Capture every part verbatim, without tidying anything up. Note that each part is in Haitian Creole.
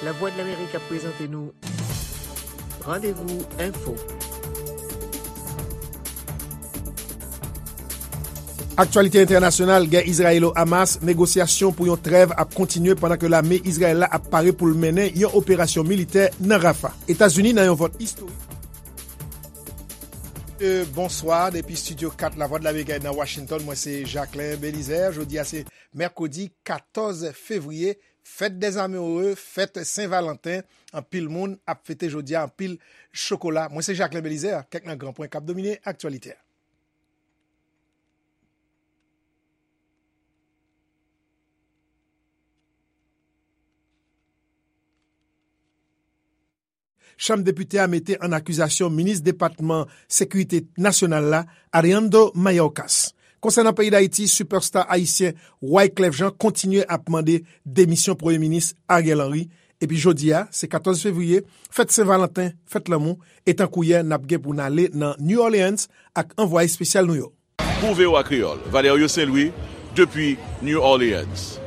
Lavwadlamerik ap prezante nou Randevou Enfo. Aktyalite entènasyonal, gè Izrayelo-Hamas, negosyasyon pou yon trèv ap kontinye pandan ke lame Izrayèl la ap pare pou l mennen yon operasyon militè nan Rafa. Etazini nan yon vòt istorik. Euh, bonswa, depi Studio kat Lavwadlamerik nan Washington, mwen se Jacquelin Belizaire. Jodi a se mèkredi katòz fevriye, fèt dèzame ore, fèt Sen Valanten. Anpil moun ap fete jodi a, anpil chokola. Mwen se Jacquelin Belizaire, kèk nan gran pwen k ap domine aktyalite a. Chanm Depite a mete an akizasyon minis depatman sekirite nasyonal la, Alejandro Mayorkas. Konsènan peyi Dayiti, sipèsta ayisyen Wyclef Jean kontinye ap mande demisyon Premye Minis Ariel Henry. Epi jodi a, se katòz fevriye, fèt Sen Valanten, fèt lanmou, e tankou yè, n ap gen pou n ale nan New Orleans ak anvwaye espesyal nou yo. Pou V O A Kreyòl, Valerio Saint-Louis, depi New Orleans.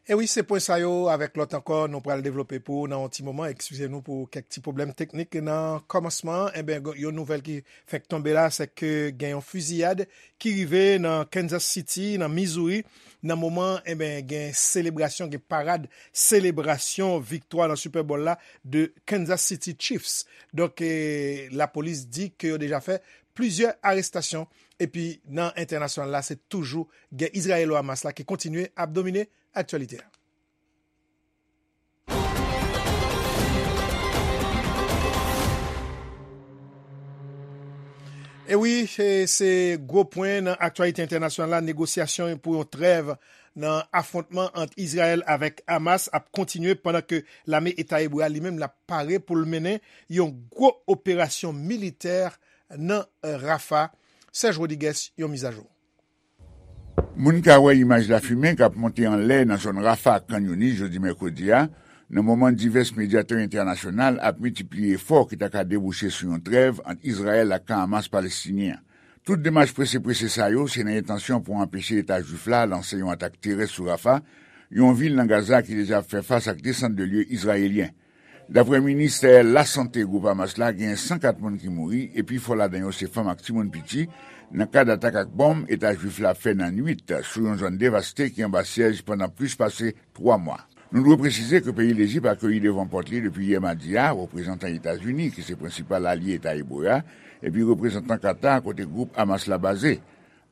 E wi, se pwen sa yo avèk lòt ankò nou pral devlope pou ou nan yon ti moman. Eskize nou pou kèk ti pwoblèm teknik nan kòmansman an. Enben, yon nouvèl ki fèk tonbe la, se ke gen yon fiziyad ki rive nan Kansas City, nan Missouri. Nan moman, enben, gen selebrasyon, gen parad selebrasyon viktwa nan Super Bowl la de Kansas City Chiefs. Donk, eh, lapolis di ke yo deja fè plizyè arestasyon. Epi nan entènasyonal la, se toujou gè Izrayelo-Hamas la ki kontinye ap domine aktyalite a. E wi, e se gwo pwen nan aktyalite entènasyonal la, negosyasyon pou yon trèv nan afwontman ant Izrayèl avèk Hamas ap kontinye pandan ke lame Eta Ebre a li menm l ap pare pou l mennen yon gwo operasyon militè nan Rafa. Serge Rodriguez, yon mizajou. Moun ka wè imaj lafimen k ap monte anlè nan zòn Rafa ak Khan Younis jodi mèkredi a, nan moman divès medyatè entènasyonal ap miltipliye efò ki ta ka debouche sou yon trèv ant Izrayèl ak kan Hamas palestinyen an. Tout demach prese prese sa yo se nan entansyon pou anpeche Eta Jwif la lanse yon atak terès sou Rafa, yon vil nan Gaza ki deja ap fè fas ak desant de lye izrayelyen. Daprè ministè lasante gwoup Hamas la, gen san kat moun ki mouri, e pifò ladan yo se fanm ak timoun piti, nan kad atak ak bonm Eta Jwif la fè nan nwit sou yon zòn devaste ki anba syèj pandan plis pase twa mwa. Nou dwe presize ke peyi Lejip akeyi devan pòt li depi yè madi a, reprezantan Etazini, ki se prensipal alye Eta Ebre a, epi reprezantan Katar, kote gwoup Hamas la baze.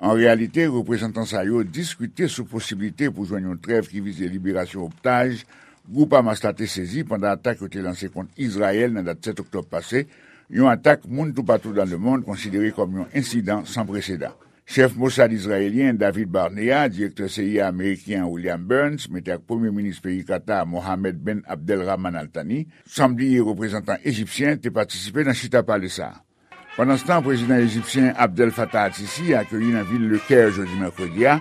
An reyalite, reprezantan sa yo diskite sou posiblite pou jwenn yon trèv ki vize liberasyon otaj gwoup Hamas la te sezi pandan atak yo te lanse kont Izrayèl nan dat sèt oktòb pase, yon atak moun toupatou dan lemonn konsidere kòm yon ensidan san presedan. Chèf Mossad izrayelyen David Barnea, direktè C I A ameriken William Burns, menm jan ak premye minis peyi Katar Mohammed ben Abdelrahman Al Thani, san bliye reprezantan ejipsyen, te patisipe nan chita pale sa a. Pandanstan, prezidan ejipsyen Abdel Fattah al-Sisi akeyi nan vil Le Caire jodi mèkredi a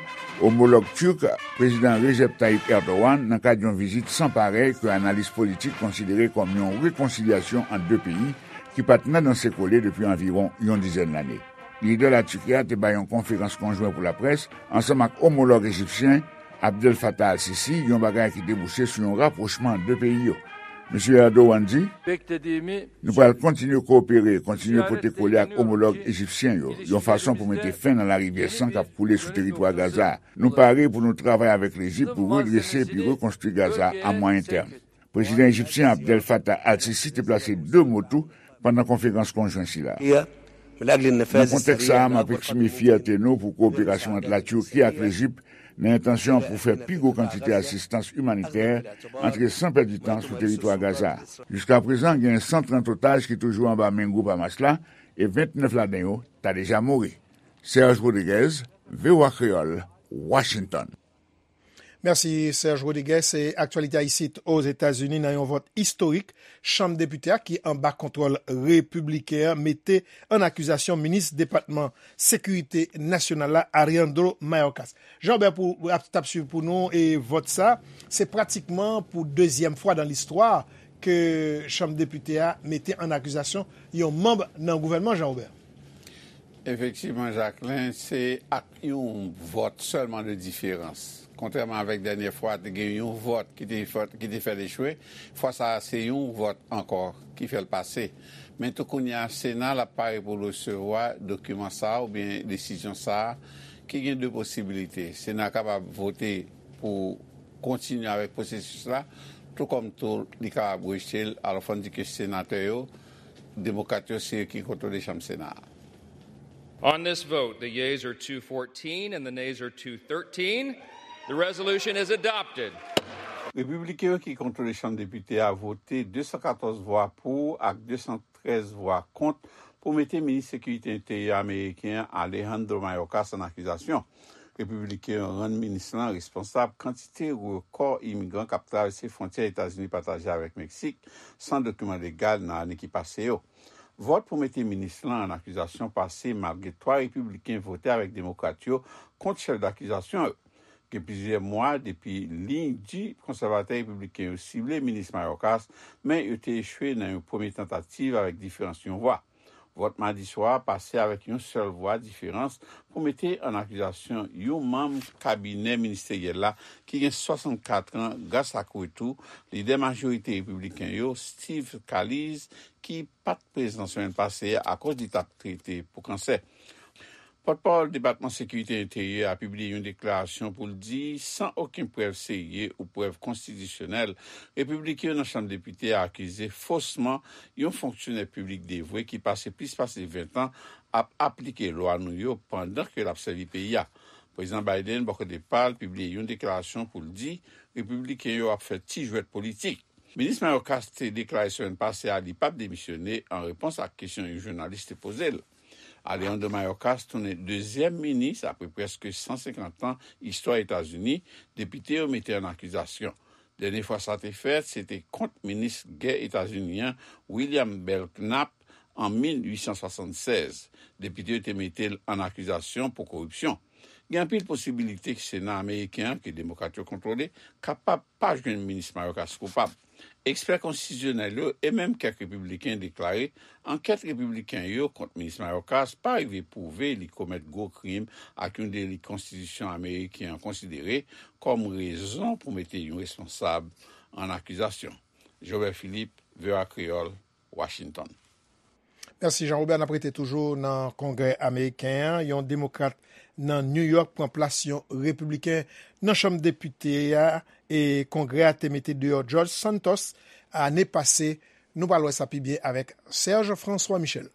omològ tirk, prezidan Recep Tayyip Erdogan, nan kad yon vizit san parèy ke analis politik konsidere kòm yon rekonsilyasyon ant de peyi ki pa t nan danse kole depi anviwon yon dizèn lane. Lidè Latiki a te bay yon konferans konjwen pou laprès ansanm ak omològ ejipsyen Abdel Fattah al-Sisi, yon bagay ki debouche sou yon rapwochman ant de peyi yo. Mesye Erdogan di, nou pral kontinye kowopere, kontinye pote kole ak omològ ejipsyen yo, yon fason pou mete fen nan larivyè san k ap koule sou teritwa Gaza a. Nou pare pou nou travay avèk Lejip pou redrese epi rekonstwi Gaza a mwayen tèm. Prezidan ejipsyen Abdel Fattah al-Sisi te plase de mo tou pandan konferans konjwen sila. Nan kontèks sa a, m ap eksprime fyète nou pou kowoperasyon ant Latiki ak Lejip nan entansyon pou fè pi gwo kantite asistans imanitè antre san pèdi tan sou teritwa Gaza a. Jiskaprezan, gen san trant otaj ki toujou anba men gwoup Hamas la e vennèf ladan yo ta deja mouri. Serge Rodriguez, V O A Kreyòl, Washington. Mèsi, Serge Rodriguez. E aktyalite a isit Ozetazini, nan yon vòt istorik, Chanm Depite a, ki anba kontwòl repibliken an, mete an akizasyon minis depatman sekirite nasyonal la, Alejandro Mayorkas. Jean Robert pou, ap, t ap swiv pou nou, e vòt sa, se pratikman pou dezyèm fwa dan listwa ke Chanm Depite a mete an akizasyon yon manm nan gouvènman, Jean Robert. Efektivman, Jacquelin, se ak yon vòt sèlman de diferans Kontrèman avèk dènyè fwa, te gen yon vòt ki te fè, ki te fè l echwe. Fwa sa a, se yon vòt ankò ki fè l pase. Men tou kounye a, Sena l ap pare pou l resevwa dokiman sa a oubyen desizyon sa a, ki gen de posibilite. Sena kapab vote pou kontinye avèk pwosesis la, tou kòm tou li kapab rejte l. Alò, fò n di ke senatè yo, demokrat yo, se yo ki kontwole chanm Sena a. On this vote, the yeas are two fourteen and the nays are two thirteen. The resolution is adopted. Repibliken yo ki kontwole chanm depite a vote de san katòz vwa pou ak de san trèz vwa kont pou mete minis sekirite enteryè ameriken an, Alejandro Mayorkas, an akizasyon. Repibliken yo rann minis lan responsab kantite rekò imigran k ap travèse fwontyè Etazini pataje avèk Meksik san dokiman legal nan ane ki pase yo. Vòt pou mete minis lan an akizasyon pase malgre twa repibliken vote avèk demokrat yo kont chèf dakizasyon yo. Gen plizyè mwa depi liy di konsèvatè repibliken yo sible minis Mayorkas, men yo te echwe nan yon premye tantativ avèk diferans yon vwa. Vòt madi swa a pase avèk yon sèl vwa diferans pou mete an akizasyon yon manm kabinè ministeryèl la ki gen swasannkat an, gras ak retou lidè majorite repibliken yo, Steve Scalise, ki pa t prezan semèn pase a akoz li t ap trete pou kansè. Pòtpawòl Depatman Sekirite Enteryè a pibliye yon deklarasyon pou l di, san okenn prèv serye ou prèv konstitisyonèl, repibliken yo nan Chanm Depite a akize fosman yon fonksyonè piblik devwe ki pase plis pase ven tan ap aplike lwa nou yo pandan ke l ap sèvi peyi a. Prezidan Biden, bò kote pa l, pibliye yon deklarasyon pou l di repibliken yo ap fè ti jwèt politik. Minis Mayorkas te deklare semèn pase a li p ap demisyone an repons ak kesyon yon jounalis te poze l. Alejandro Mayorkas tounen dezyèm minis apre prèske san senkant an istwa Etazini depite yo mete an akizasyon. Dènye fwa sa te fèt, se te kont minis gè Etazini an, William Belknap, an mil uit san swasannsèz. Depite yo te mete l an akizasyon pou koripsyon. Gen anpil posibilite ke Sena ameriken an, ke demokrat yo kontwole, kapab pa jwenn minis Mayorkas koupab. Ekspè konstitisyonèl yo e menm kèk repibliken deklare ankèt repibliken yo kont minis Mayorkas pa rive pwouve li komèt gwo krim ak yon deli konstitisyon ameriken an konsidere kòm rezon pou mete yon responsab an akizasyon. Jobert Philippe, V O A Kreyòl, Washington. Mèsi, Jean Robert. N ap rete toujou nan Kongrè ameriken an. Yon demokrat nan New York pran plas yon repibliken nan Chanm Depite a, e Kongrè a te mete deyò George Santos ane pase. Nou pral wè sa pi byen avèk Serge François Michel.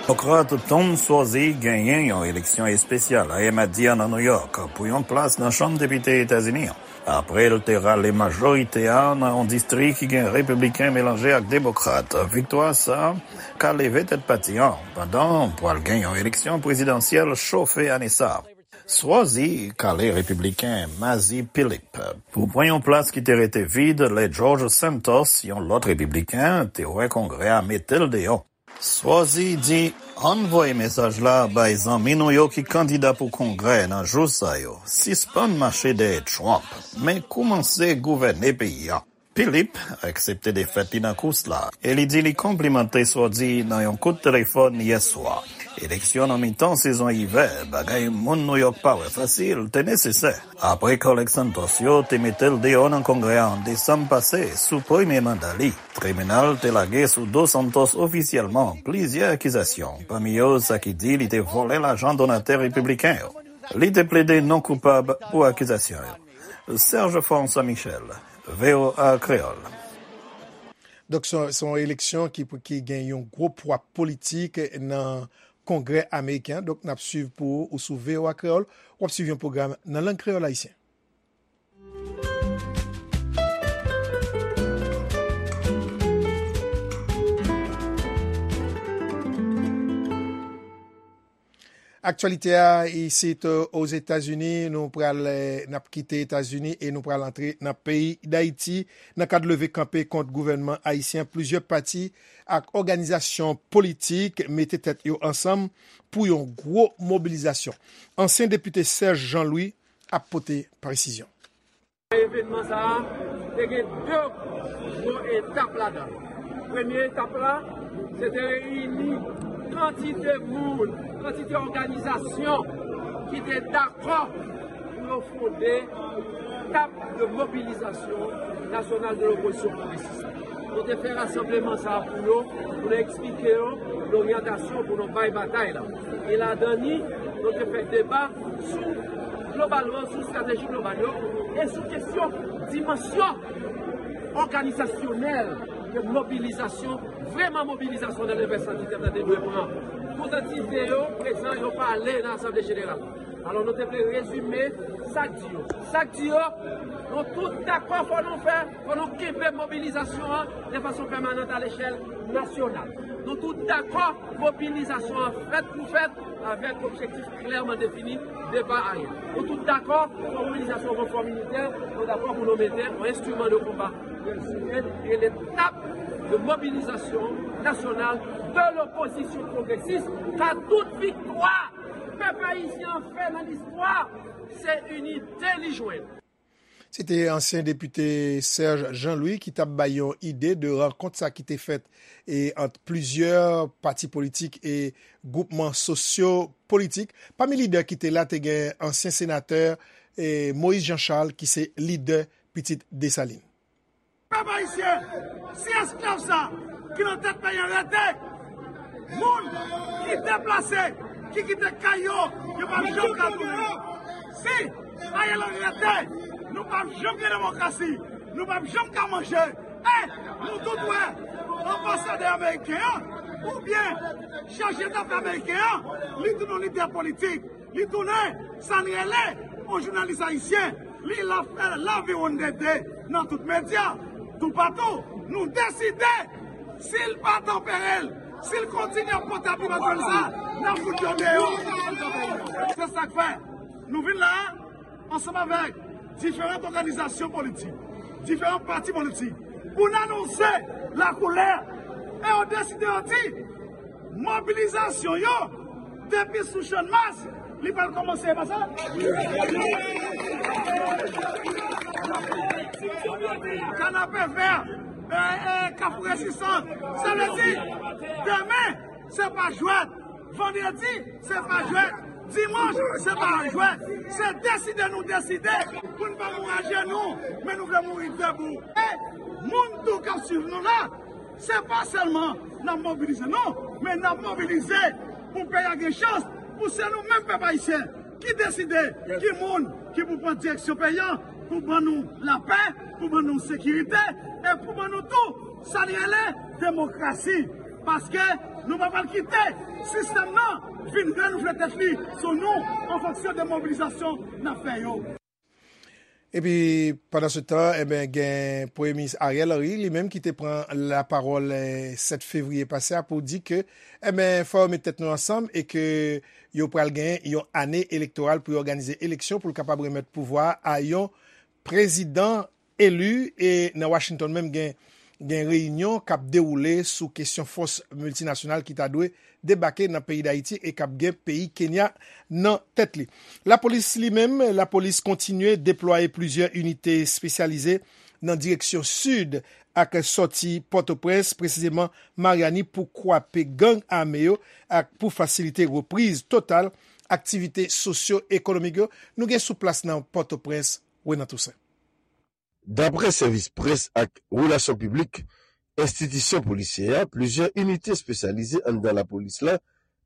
Demokrat Tom Suozzi genyen yon eleksyon espesyal ayè madi a nan New York pou yon plas nan Chanm Depite Etazini an. Apre l te rale majorite a nan yon distri ki gen repibliken melanje ak demokrat, viktwa sa a ka leve tèt pati an, pandan pral gen yon eleksyon prezidansyèl chofe ane sa a. Suozzi kale repibliken Mazi Philip pou pran yon plas ki te rete vid lè George Santos, yon lòt repibliken, te wè Kongrè a mete l deyò. Suozzi di, ann voye mesaj la bay zanmi nou yo ki kandida pou Kongrè nan jou sa yo, sispann mache dèyè Trump, men koumanse gouvène peyi a. Philip aksepte defèt li nan kous la, e li di li konplimante Suozzi nan yon kout telefòn yè swa. Eleksyon nan mitan sezon ivè, bagay moun New York pa wè fasil, te nesesè. Apre kòlèg Santos yo te mete l deyò nan Kongrè a an desanm pase sou premye manda li, tribinal te lage sou do Santos ofisyèlman plizyè akizasyon, pami yo sa ki di li te vòlè lajan donatè repibliken yo. Li te plede non koupab pou akizasyon yo. Serge François Michel, V O A Kreyòl. Donk, se, se yon eleksyon ki, ki gen yon gwo pwa politik nan Kongrè ameriken an. Donk, n ap swiv pou ou sou V O A Kreyòl. W ap swiv yon pwogram nan lang kreyòl ayisyen. Aktyalite a isit, euh, Ozetazini, nou pral, euh, n ap kite Etazini e nou pral antre nan peyi Dayiti. Nan kad leve kanpe kont gouvènman ayisyen, plizyè pati ak òganizasyon politik mete tèt yo ansanm pou yon gwo mobilizasyon. Ansyen depite Serge Jean Louis ap pote presizyon. Evènman sa a te gen de gwo etap ladan l. Premye etap la, se te reyini kantite moun, kantite òganizasyon ki te dakò pou Yo fonde Table de Mobilisation Nationale de l'Opposition Progressiste. Nou te fè rasanbleman sa a pou yo, pou nou eksplike yo loryantasyon pou nou bay batay la. E ladan ni, nou te fè deba sou globalman, sou estrateji global yo, e sou kesyon dimansyon òganizasyonèl de mobilizasyon, vrèman mobilizasyon nan levèsantitè te dwe pran. Tout antite yo prezan, yo pale nan Asanble Jeneral. Alò, nou te vle rezime sa k di yo. Sa k di yo, nou tout dakò, fò nou fè, fò nou kenbe mobilizasyon an de fason pèmanant a lechèl nasyonal. Nou tout dakò, mobilizasyon an fèt pou fèt, avèk objektif klèman defini, depa ayen. Nou tout dakò, fò mobilizasyon ranfò militè, nou dakò pou nou mete yon enstriman de konba rele Table de Mobilisation Nationale de l'Opposition Progressiste, ka tout viktwa pèp ayisyen an fè nan listwa, se inite li jwenn. Se te ansyen depite Serge Jean-Louis ki t ap bay yon ide de rankont sa ki te fèt e ant plizyè pati politik e gwoupman sosyo politik. Pami lidè ki te la, te gen ansyen senatè e Moïse Jean Charles ki se lidè Pitit Desalin. Pèp ayisyen, si esklav sa ki nan tèt peyi an rete, moun ki deplase, ki kite kay yo, yo p ap janm ka tounen. Si Ariel Henry rete, nou p ap janm gen demokrasi, nou p ap janm ka manje. E nou tout wè, anbasadè ameriken an, oubyen chaje dafè ameriken an, li tounen yon lidè politik. Li tounen sa n rele yon jounalis ayisyen. Li la fè laviwonndede nan tout medya, toupatou. Nou deside, si l pa tanpere l, si l kontinye ap pote abiman sa, n ap fout yo deyò. Se sa k fè nou vin la a, ansanm avèk diferan òganizasyon politik, diferan pati politik, pou n anonse lakoulè. E yo deside, yo di, mobilizasyon yo, depi sou Channmas, li pral kòmanse, e pa sa? Kanapevè, e, e, Kafou Rezistans. Sa vle di, demen, se pa jwèt. Vandredi, se pa jwèt. Dimanch, se pa jwèt. Se deside nou deside pou n pa mouri ajenou, men nou vle mouri debou. E moun tou k ap swiv nou la, se pa sèlman n ap mobilize, non, men n ap mobilize pou peyi a gen chans, pou se nou menm pèp ayisyen ki deside ki moun ki pou pran direksyon peyi a, pou ban nou lapè, pou ban nou sekirite, e pou ban nou tou sa n rele demokrasi. Paske nou pa pral kite sistèm nan vin renouvle tèt li sou nou an fonksyon de mobilizasyon n ap fè yo. Epi, pandan se tan, enben, gen Premye Minis Ariel Henry, li menm ki te pran lapawòl, eh, sèt fevriye pase a pou di ke, enben, fò yo met tèt nou ansanm e ke yo pral gen yon ane elektoral pou yo òganize eleksyon pou l kapab remèt pouvwa a yon prezidan eli. E nan Washington menm, gen, gen reyinyon k ap dewoule sou kesyon fòs miltinasyonal ki ta dwe debake nan peyi Dayiti e k ap gen peyi Kenya nan tèt li. Lapolis li menm, lapolis kontinye deplwaye plizyè inite espesyalize nan direksyon sid ak sòti Pòtoprens, presizeman Maryani, pou kwape gang ame yo ak pou fasilite repriz total aktivite sosyo-ekonomik yo. Nou gen sou plas nan Pòtoprens, Renan Toussaint. Daprè sèvis près ak relasyon piblik enstitisyon polisyè a, plizyè inite espesyalize anndan lapolis la,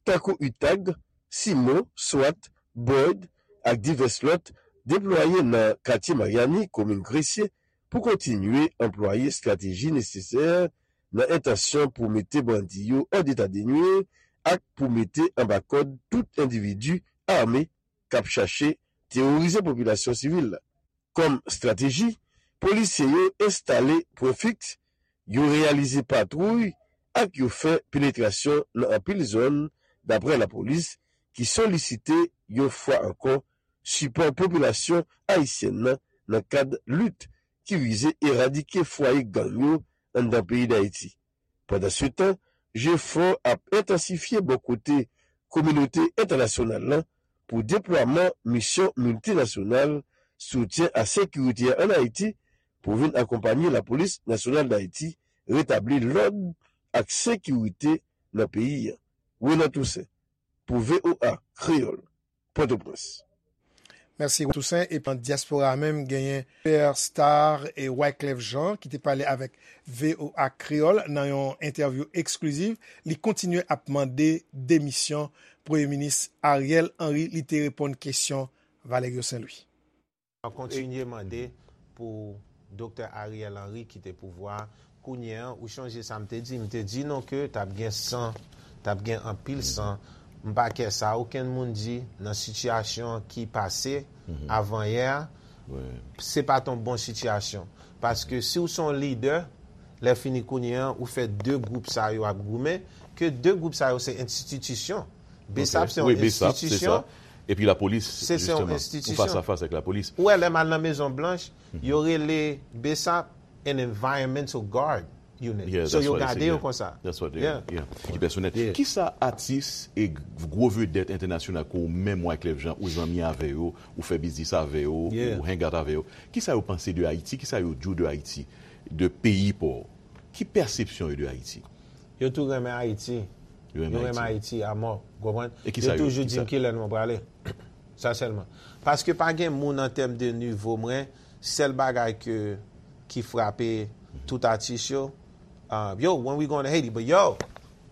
tankou UTAG, CIMO, swat, BOID ak divès lòt, deplwaye nan katye Maryani, komin Gresye, pou kontinye anplwaye estrateji nesesè nan entansyon pou mete bandi yo an eta de nwir ak pou mete anba kòd tout endividi ame k ap chache teworize popilasyon sivil la. Kòm estrateji, polisye yo enstale pwen fiks, yo reyalize patwouy ak yo fè penetrasyon nan anpil zòn, daprè lapolis, ki solisite yon fwa ankò sipò popilasyon ayisyèn nan nan kad lit ki vize eradike fwaye gang yo anndan peyi Dayiti. Pandansetan, jefò ap entansifye bò kote kominote entènasyonal la pou deplwaman misyon miltinasyonal soutyen a sekirite a ann Ayiti pou vin akonpanye Lapolis Nasyonal Dayiti retabli lòd ak sekirite nan peyi a. Renan Toussaint, pou VOA Kreyòl, Pòtoprens. Mèsi Toussaint. Epi nan dyaspora a menm, genyen Superstar e Wyclef Jean ki te pale avèk V O A Kreyòl nan yon entèvyou eksklizif. Li kontinye ap mande demisyon Premye Minis Ariel Henry. Li te reponn kesyon Valerio Saint Louis. Kontinye mande pou Doktè Ariel Henry kite pouvwa a. Kounye a, ou chonje sa m te di? M te di nou ke t ap gen san, t ap gen anpil san. M pa kè sa okenn moun di nan sitiyasyon ki pase avanyè a, se pa t yon bon sitiyasyon. Paske si w se yon lidè, lè fini kounye a, ou fè de gwoup sa yo ap goumen, ke de gwoup sa yo se enstititisyon. Bsap se yon enstitisyon. Epi lapolis, jisteman, ou fas a fas avèk lapolis. Ou wè lè m al nan Mezon Blanch, yo rele Bsap an environmental guard unit. So yo gade yo konsa. Ki pèsonèl. Kisa atis e gwo vedèt entènasyonal ke ou menm Wyclef Jean ou zanmi avè yo, ou fè biznis avè yo, ou hang out avè yo, kisa yo panse de Ayiti, kisa yo di w de Ayiti, de peyi pa w? Ki pèsepsyon yo de Ayiti? Yo tou renmen Ayiti. Yo renmen Ayiti amò. Ou konprann? Yo toujou di m kilè nou prale. Sa sèlman. Paske pa gen moun an tèm de nivo mwen, sèl bagay ke ki frape tout atis yo, uh, yo, when we going to Haiti, but yo,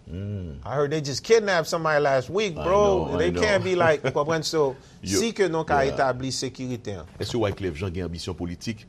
I heard they just kidnapped somebody last week, bro. They can't be like, ou konprann? So, si ke nou ka etabli sekirite an. Èske Wyclef Jean gen anbisyon politik?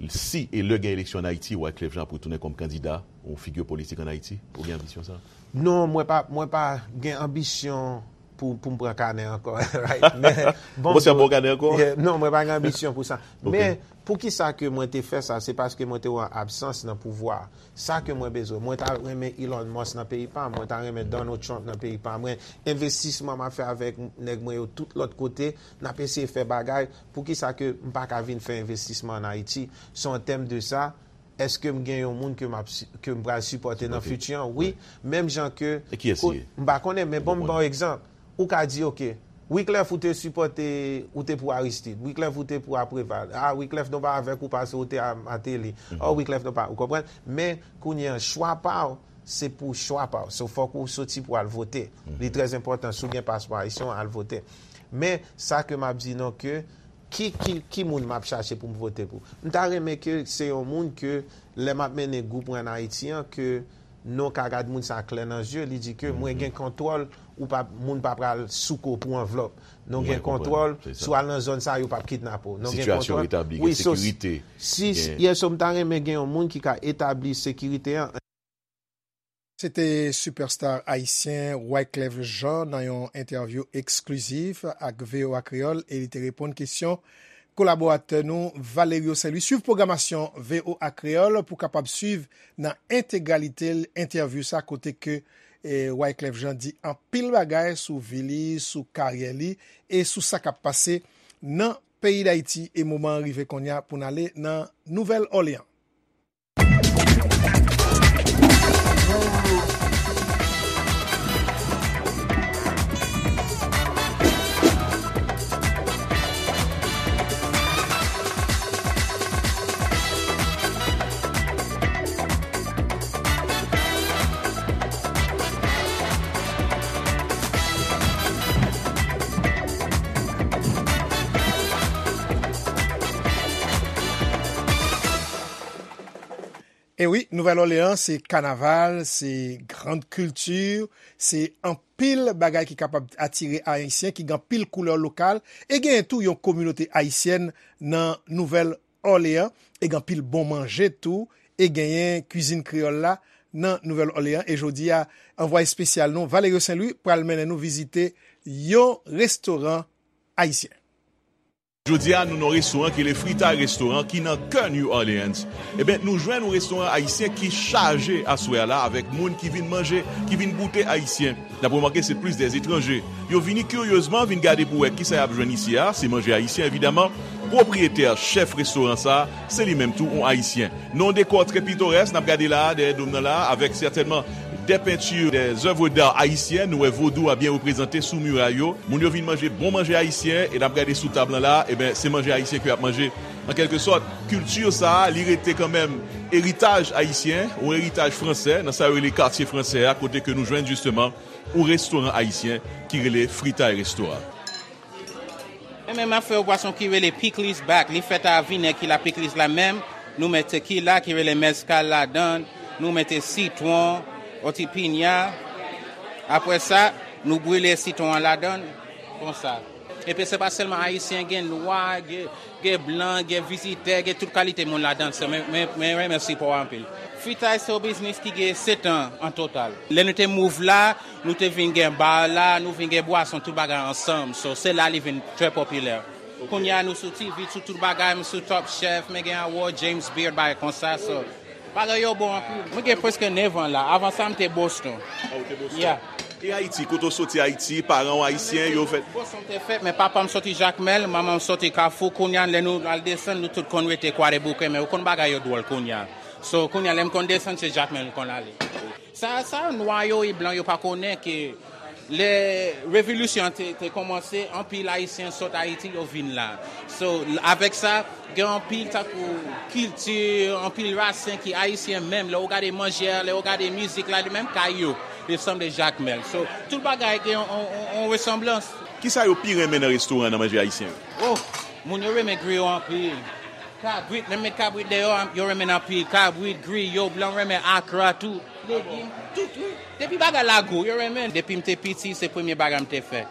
Si e lè gen eleksyon an Ayiti, Wyclef Jean ap retounen kòm kandida, yon figi politik an Ayiti? Ou gen anbisyon sa? Non, mwen pa, mwen pa gen anbisyon pou, pou m pran kanè ankò. Right? Men, bon, ou panse ap ba w kanè ankò? Non, mwen pa gen anbisyon pou sa. Men, poukisa ke mwen te fè sa? Se paske mwen te wè absans nan pouvwa. Sa ke mwen bezwen. Mwen ta renmen Elon Musk nan peyi pa m. Mwen ta renmen Donald Trump nan peyi pa mwen. Envestisman m ap fè avèk nèg mwen yo tout lòt kote, n ap eseye fè bagay. Poukisa ke m pa ka vin fè envestisman an Ayiti? So, an tèm de sa, èske m gen yon moun ke m ap si- ke m pral sipòte nan fiti an? Wi. Menm jan ke. E kiyès li ye? M pa konnen, men bon, m ba w egzanp. Ou ka di, oke, Wyclef ou te sipòte, ou te pou Aristide. Wyclef ou te pou a Preval. Ah, Wyclef nou pa avèk ou paske ou te a Martelly. Oh, Wyclef nou pa, ou konprann? Men, kounye an, chwa pa w, se pou chwa pa w. So, fòk ou soti pou al vote. Li trè enpòtan, si w gen paspò ayisyen, al vote. Men, sa ke m ap di nou ke, ki, ki, ki moun m ap chache pou m vote pou? M ta renmen ke se yon moun ke, lè m ap mennen gwoup mwen an Ayiti an, ke nou ka gad moun sa klè nan zye, li di ke mwen gen kontwòl, ou pa, moun pa pral souke w pou anvlòp. Nou gen kontwòl, si w al nan zòn sa, yo p ap kidnape w. Nou gen kontwòl. Sitiyasyon retabli, gen sekirite. Si, yes, so m ta renmen gen yon moun ki ka etabli sekirite an. Se te sipèsta ayisyen Wyclef Jean nan yon entèvyou eksklizif ak V O A Kreyòl e li te reponn kesyon kolaboratè nou Valerio Saint Louis. Swiv pwogramasyon V O A Kreyòl pou w kapab swiv nan entegralite l entèvyou sa kote ke e, Wyclef Jean di anpil bagay sou vi li, sou karyè li e sou sa k ap pase nan peyi Dayiti e moman an rive kounye a pou n ale nan Nouvèl Òleyan. E wi, Nouvèl Òleyan se kanaval, se grand kilti, se anpil bagay ki kapab atire Ayisyen, ki gen anpil koulè lokal, e genyen tou yon kominote ayisyèn nan Nouvèl Òleyan, e gen anpil bon manje tou, e genyen kwizin kreyòl la nan Nouvèl Òleyan. E jodi a, anvwaye espesyal nou, Valerio Saint Louis, pral mennen nou vizite yon restoran ayisyen. Jodi a, nou nan yon restoran ki rele Fritay Restoran, ki nan kè New Orleans. Eben, nou jwenn yon restoran ayisyen ki chaje aswè a la avèk moun ki vin manje, ki vin goute ayisyen. N ap remake se plis dè etranje. Yo vini kiryezman vin gade pou wè kisa y ap jwenn isi a, se manje ayisyen evidaman. Pwopriyetè, chèf restoran sa a, se li menm tou yon ayisyen. Nan yon dekò trè pitorès, n ap gade la a, dèyè do m nan la a, avèk sètènman dè penti, dè zèv d'a ayisyen, nou wè vodou a byen reprezante sou miray yo. Moun yo vin manje bon manje ayisyen, e n ap gade sou tab lan la a, eben, se manje ayisyen ke y ap manje. An kèlke sòt, kilti sa a, li rete kanmenm eritaj ayisyen, yon eritaj fransè, nan sa yo rele katye fransè a, kote ke nou jwenn jisteman yon restoran ayisyen ki rele Fritay Restoran. Menm afè yon bwason ki rele Piklis Bak, li fèt a vinèg ki la piklis la menm, nou mete ki la ki rele mezcal ladan, nou mete sitwon, oti pinya. Apre sa, nou brile sitwon an ladan, konsa. Epi se pa sèlman ayisyen, gen nwa, gen, gen blan, gen vizitè, gen tout kalite moun ladan. Se mwen, mwen, mwen renmen sipò anpil. Fritay se yon biznis ki gen sèt an an total. Lè nou te mouv la, nou te vin gen bar la, nou vin gen bwason, tout bagay ansanm. So, se la li vin trè popilè. Kounye a nou sou T V, sou tout bagay, m sou Top Chef, men gen award, James Beard, bagay konsa. So, bagay yo bon anpil. Mwen gen prèske nèf an la. Avan sa, m te Boston. Ah, ou te Boston. Yeah. E Ayiti, kote w soti Ayiti, paran w ayisyen, yo fèt? Boston te fèt, men papa m soti Jakmèl, manman m soti Kafou. Kounye a, lè nou al desann, nou tout konn rete Kwadèboukè, men ou konn bagay yo dwòl kounye a. So, kounye a, lè m konn desann, se Jakmèl m konn ale. Sa, sa, nwa yo e blan yo pa konnen ke lè revolisyon an te, te kòmanse, anpil Ayisyen sot Ayiti, yo vin la. So, avèk sa, gen anpil tankou kilti, anpil rasen ki ayisyen menm. Lè w gade manje a, lè w gade mizik la, li menm kay yo, li sanble Jakmèl. So, tout bagay gen yon, yon, yon, yon resanblans. Kisa yo pi renmen nan restoran nan manje ayisyen yo? Oh, moun yo renmen griyo anpil. Kabrit, menm met kabrit deyò, yo renmen anpil. Kabrit, griyo, blan renmen akra tou. Legim, tout, wi. Depi bagay la gou, yo renmen. Depi m te piti, se premye bagay m te fè.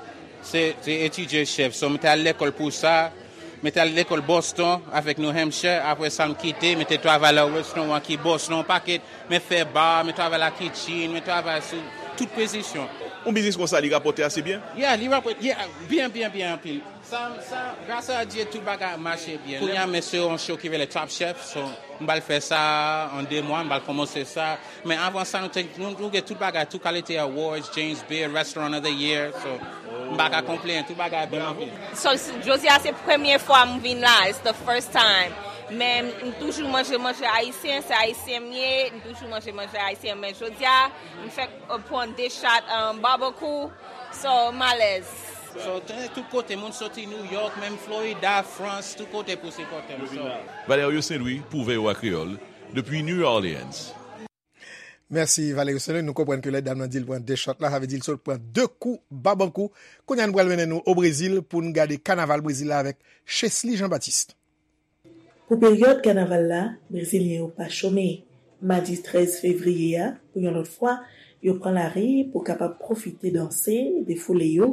Se, se etidye chèf. So, m te al lekòl pou sa. M te al lekòl Boston avèk New Hampshire. Apre sa, m kite, m te travay nan restoran ki Boston, yon pakèt. M fè bar, m travay la kitchen, m travay sou tout pozisyon. Yon biznis konsa, li rapòte ase byen? Yeah, li rapòte, yeah, byen, byen, byen anpil. Sa, sa, gras a Dye, tout bagay ap mache byen. Kounye a, men se yon show ki rele Top Chef, so, m pral fè sa an de mwa, m pral kòmanse sa. Men avan sa, nou te, nou, nou gen tout bagay, tout kalite awards, James Beard, Restaurant of the Year, so, m pa ka konplenn, tout bagay bèl anpil. So, jodi a se premye fwa m vin la, it's the first time. Men m toujou manje manje ayisyen, se ayisyen m ye, m toujou manje manje ayisyen, men jodi a, m fèk, uh, pran de shot, um, barbecue, so, m alèz. So, te tout kote, moun soti New York, menm Florida, Frans, tout kote pou sipòte m. So. Valerio Saint-Louis pou V O A Kreyòl, depi New Orleans. Mèsi, Valerio Saint-Louis. Nou konprann ke lè dam nan di l pran de shot la, sa vle di l sot pran de kou babankou. Kounye a, nou pral mennen nou o Brezil pou n gade kanaval Brezil la avèk Chesly Jean-Baptiste. Pou peryòd kanaval la, Brezilyen yo pa chome. Madi trèz fevriye a, pou yon lòt fwa, yo pran lari pou kapab pwofite danse, defoule yo,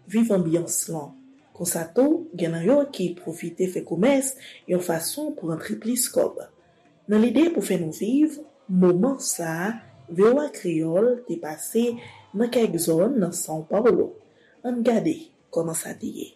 viv anbyans lan. Konsa tou, gen nan yo ki pwofite fè komès yon fason pou rantre plis kòb. Nan lide pou fè nou viv moman sa a, V O A Kreyòl te pase nan kèk zòn nan São Paulo. Ann gade kòman sa te ye.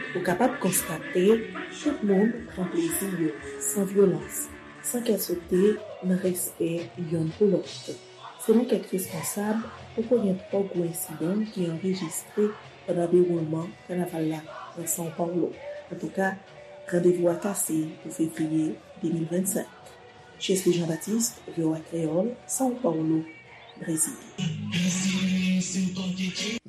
Ou kapab konstate, tout moun pran plezi yo, san vyolans, san kè sote, nan respè yonn pou lòt. Selon kèk responsab, poko gen twò gwo ensidan ki anrejistre pandan dewoulman kanaval la nan São Paulo. Antouka, randevou a kase pou fevriye de mil vennsenk. Chesly Jean-Baptiste, V O A Kreyòl, São Paulo, Brezil.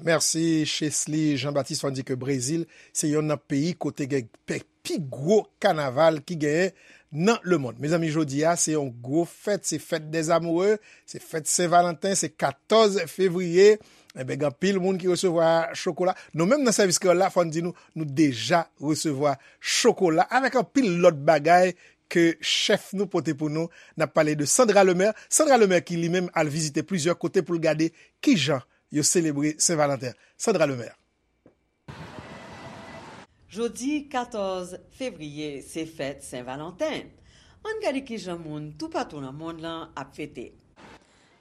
Mèsi, Chesly Jean-Baptiste. Fò n di ke Brezil se yonn nan peyi kote gen pe-, pi gwo kanaval ki genyen nan lemonn. Mezanmi, jodi a, se yon gwo fèt, se fèt dèzamoure, se fèt Sen Valanten, se katòz fevriye. Enben, gen anpil moun ki resevwa chokola. Nou menm nan sèvis kreyòl la, fò n di nou, nou deja resevwa chokola avèk anpil lòt bagay ke chèf nou pote pou nou. N ap pale de Sandra Lemaire. Sandra Lemaire ki li menm al vizite plizyè kote pou l gade kijan yo selebre Sen Valanten. Sandra Lemaire. Jodi katòz fevriye, se fèt Sen Valanten. Ann gade kijan moun toupatou nan monn lan ap fete.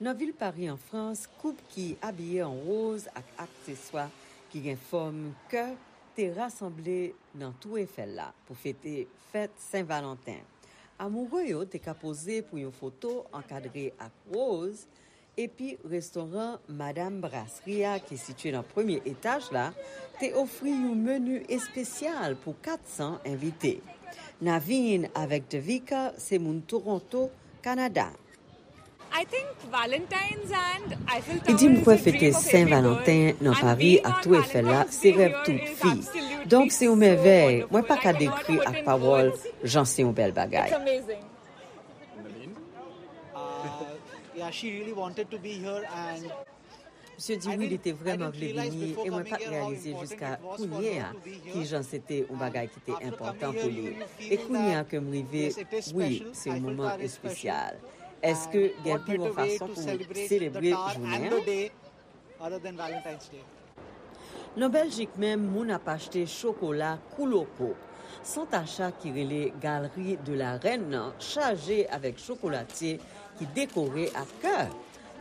Nan vil Pari, an Frans, koup ki abiye an woz ak akseswa ki gen fòm kè te rasanble nan Tou Efèl la pou fete fèt Sen Valanten. Amoure yo te ka poze pou yon foto ankadre ak woz, Epi restoran Madam Brasserie a, ki sitiye nan premye etaj la, te ofri yon meni espesyal pou kat san envite. Naveen avèk Devika se moun Toronto, Kanada. Li di, "M kwè fete Sen Valanten nan Pari ak Tour Eiffel la se rèv tout fi. Donk, se yon mèvèy. Mwen pa ka dekri ak pawòl jan se yon bèl bagay." Misye di wi, li te vrèman vle vini, e mwen pa t reyalize jiska kounye a ki jan se te yon bagay ki te enpòtan pou li. E kounye a ke m rive, wi, se yon moman espesyal. Èske gen pi bon fason pou selebre jounen an? Nan Bèljik menm, moun ap achte chokola kou loko. Sant acha ki rele Galerie de la Reine nan chaje avèk chokolatye ki dekore ak kè.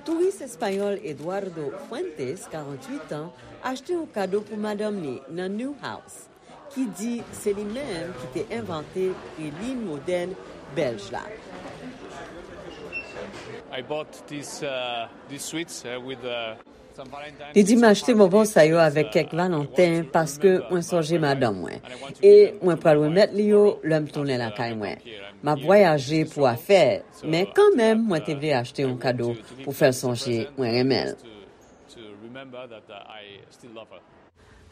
Touris espayòl Eduardo Fuentes, karanntuit an, achte yon kado pou madanm li nan Newhouse, ki di se li menm ki te envante pralin modèn bèlj la. I bought these, uh, these sweets, uh, with, uh, some Valentine Li di, "M achte bonbon sa yo avèk kèk Valanten paske mwen sonje madanm mwen. E mwen pral remèt li yo lè m tounen lakay mwen. M ap vwayaje pou afè, men kanmenm mwen te vle achte yon kado pou fè l sonje mwen renmen l."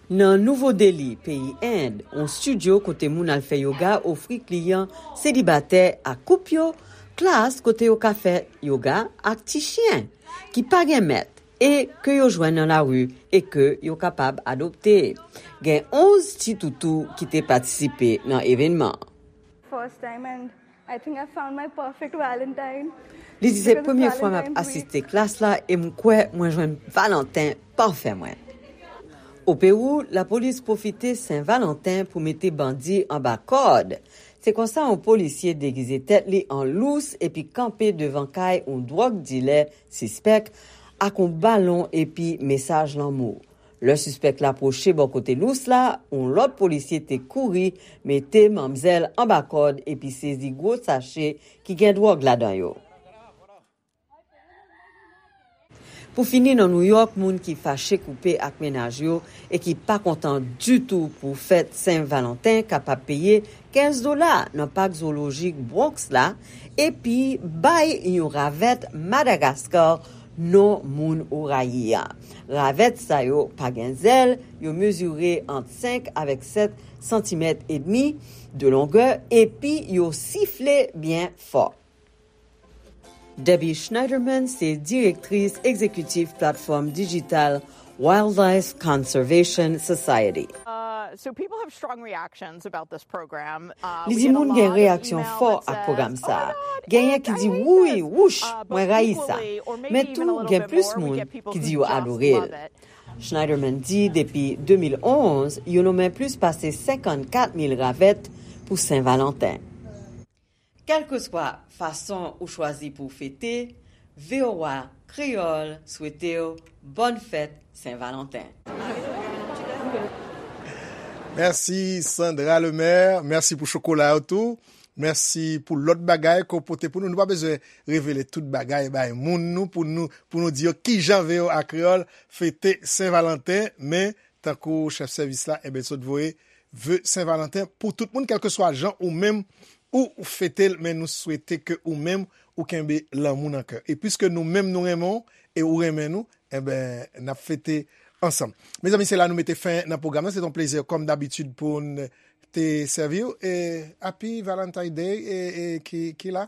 Nan Nouvo Deli, peyi End, yon estidyo kote moun al fè yoga ofri kliyan selibatè ak koup yo klas kote yo ka fè yoga ak ti chen ki pa gen mèt e ke yo jwenn nan lari e ke yo kapab adopte. Gen onz ti toutou ki te patisipe nan evènman. First time and I think I found my perfect Valentine. Li di, "Se premye fwa m ap asiste klas la e m kwè mwen jwenn Valanten pafè mwen." O Pewou, lapolis pwofite Sen Valanten pou mete bandi anba kòd. Se konsa yon polisye degize tèt li an lous epi kanpe devan kay yon dwòg dilè sispèk ak yon balon epi mesaj lanmou. Lè sispèk la pwoche bò kote lous la, yon lòt polisye te kouri mete manmzèl anba kòd epi sezi gwo sache ki gen dwòg ladan yo. Pou fini, nan Nouyòk, moun ki fache koupe ak mennaj yo e ki pa kontan ditou pou fèt Sen Valanten kapab peye kenz dola nan pak zowolojik Bronx la, epi bay yon ravèt Madagaskar non moun ou rayi a. Ravèt sa yo pa gen zèl, yo mezire ant senk avèk sèt santimèt edmi de longè, epi yo sifle byen fò. Debbie Schneiderman se direktris egzekitif platfòm dijital Wildlife Conservation Society. Uh, so people have strong reactions about this program. Uh, Li di moun gen reyaksyon fò ak pwogram sa a. Genyen ki di, "Wouy, wouch, mwen rayi sa." Men tou, gen plis moun ki di yo adore l. Schneiderman di depi de mil onz, yo nonmen plis pase senkannkat mil ravèt pou Sen Valanten. Kèlkeswa fason ou chwazi pou w fete, V O A Kreyòl swete w bòn fèt Sen Valanten. Mèsi Sandra Lemaire, mèsi pou chokola yo tou. Mèsi pou lòt bagay ke w pote pou nou. Nou pa bezwen revele tout bagay bay moun nou pou nou, pou nou di yo kijan V O A Kreyòl fete Sen Valanten, men tankou chèf sèvis la, enben, sot voye ve Sen Valanten pou tout moun, kèlkeswa jan ou menm ou fete l, men nou swete ke ou menm ou kenbe lanmou nan kè. E piske nou menm nou renmen w e ou renmen nou, enben, n ap fete ansanm. Mezanmi, se la nou mete fen nan pwogram nan. Se te yon plezi, kòm dabitid, pou n te sèvi w. E Happy Valentine Day, e, e ki, ki la,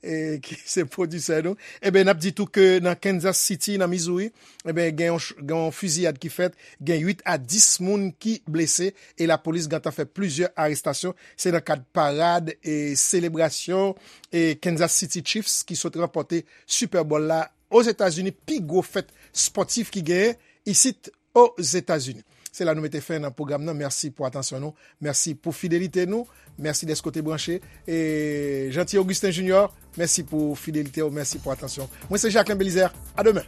e ki se pwodisè nou. Enben, n ap di tou ke nan Kansas City, nan Missouri, enben, gen yon ch-, gen yon fiziyad ki fèt, gen uit a dis moun ki blese, e lapolis gentan fè plizyè arestasyon. Se nan kad parad e selebrasyon e Kansas City Chiefs ki sot ranpòte Super Bowl la Ozetazini, pi gwo fèt spòtif ki genyen isit Ozetazini. Se la nou mete fen nan pwogram nan. Mèsi pou atansyon nou. Mèsi pou fidelite nou. Mèsi dèske w te branche. E Jeanty Augustin Junior, mèsi pou fidelite w. Mèsi pou atansyon. Mwen se Jacquelin Belizaire. A demen.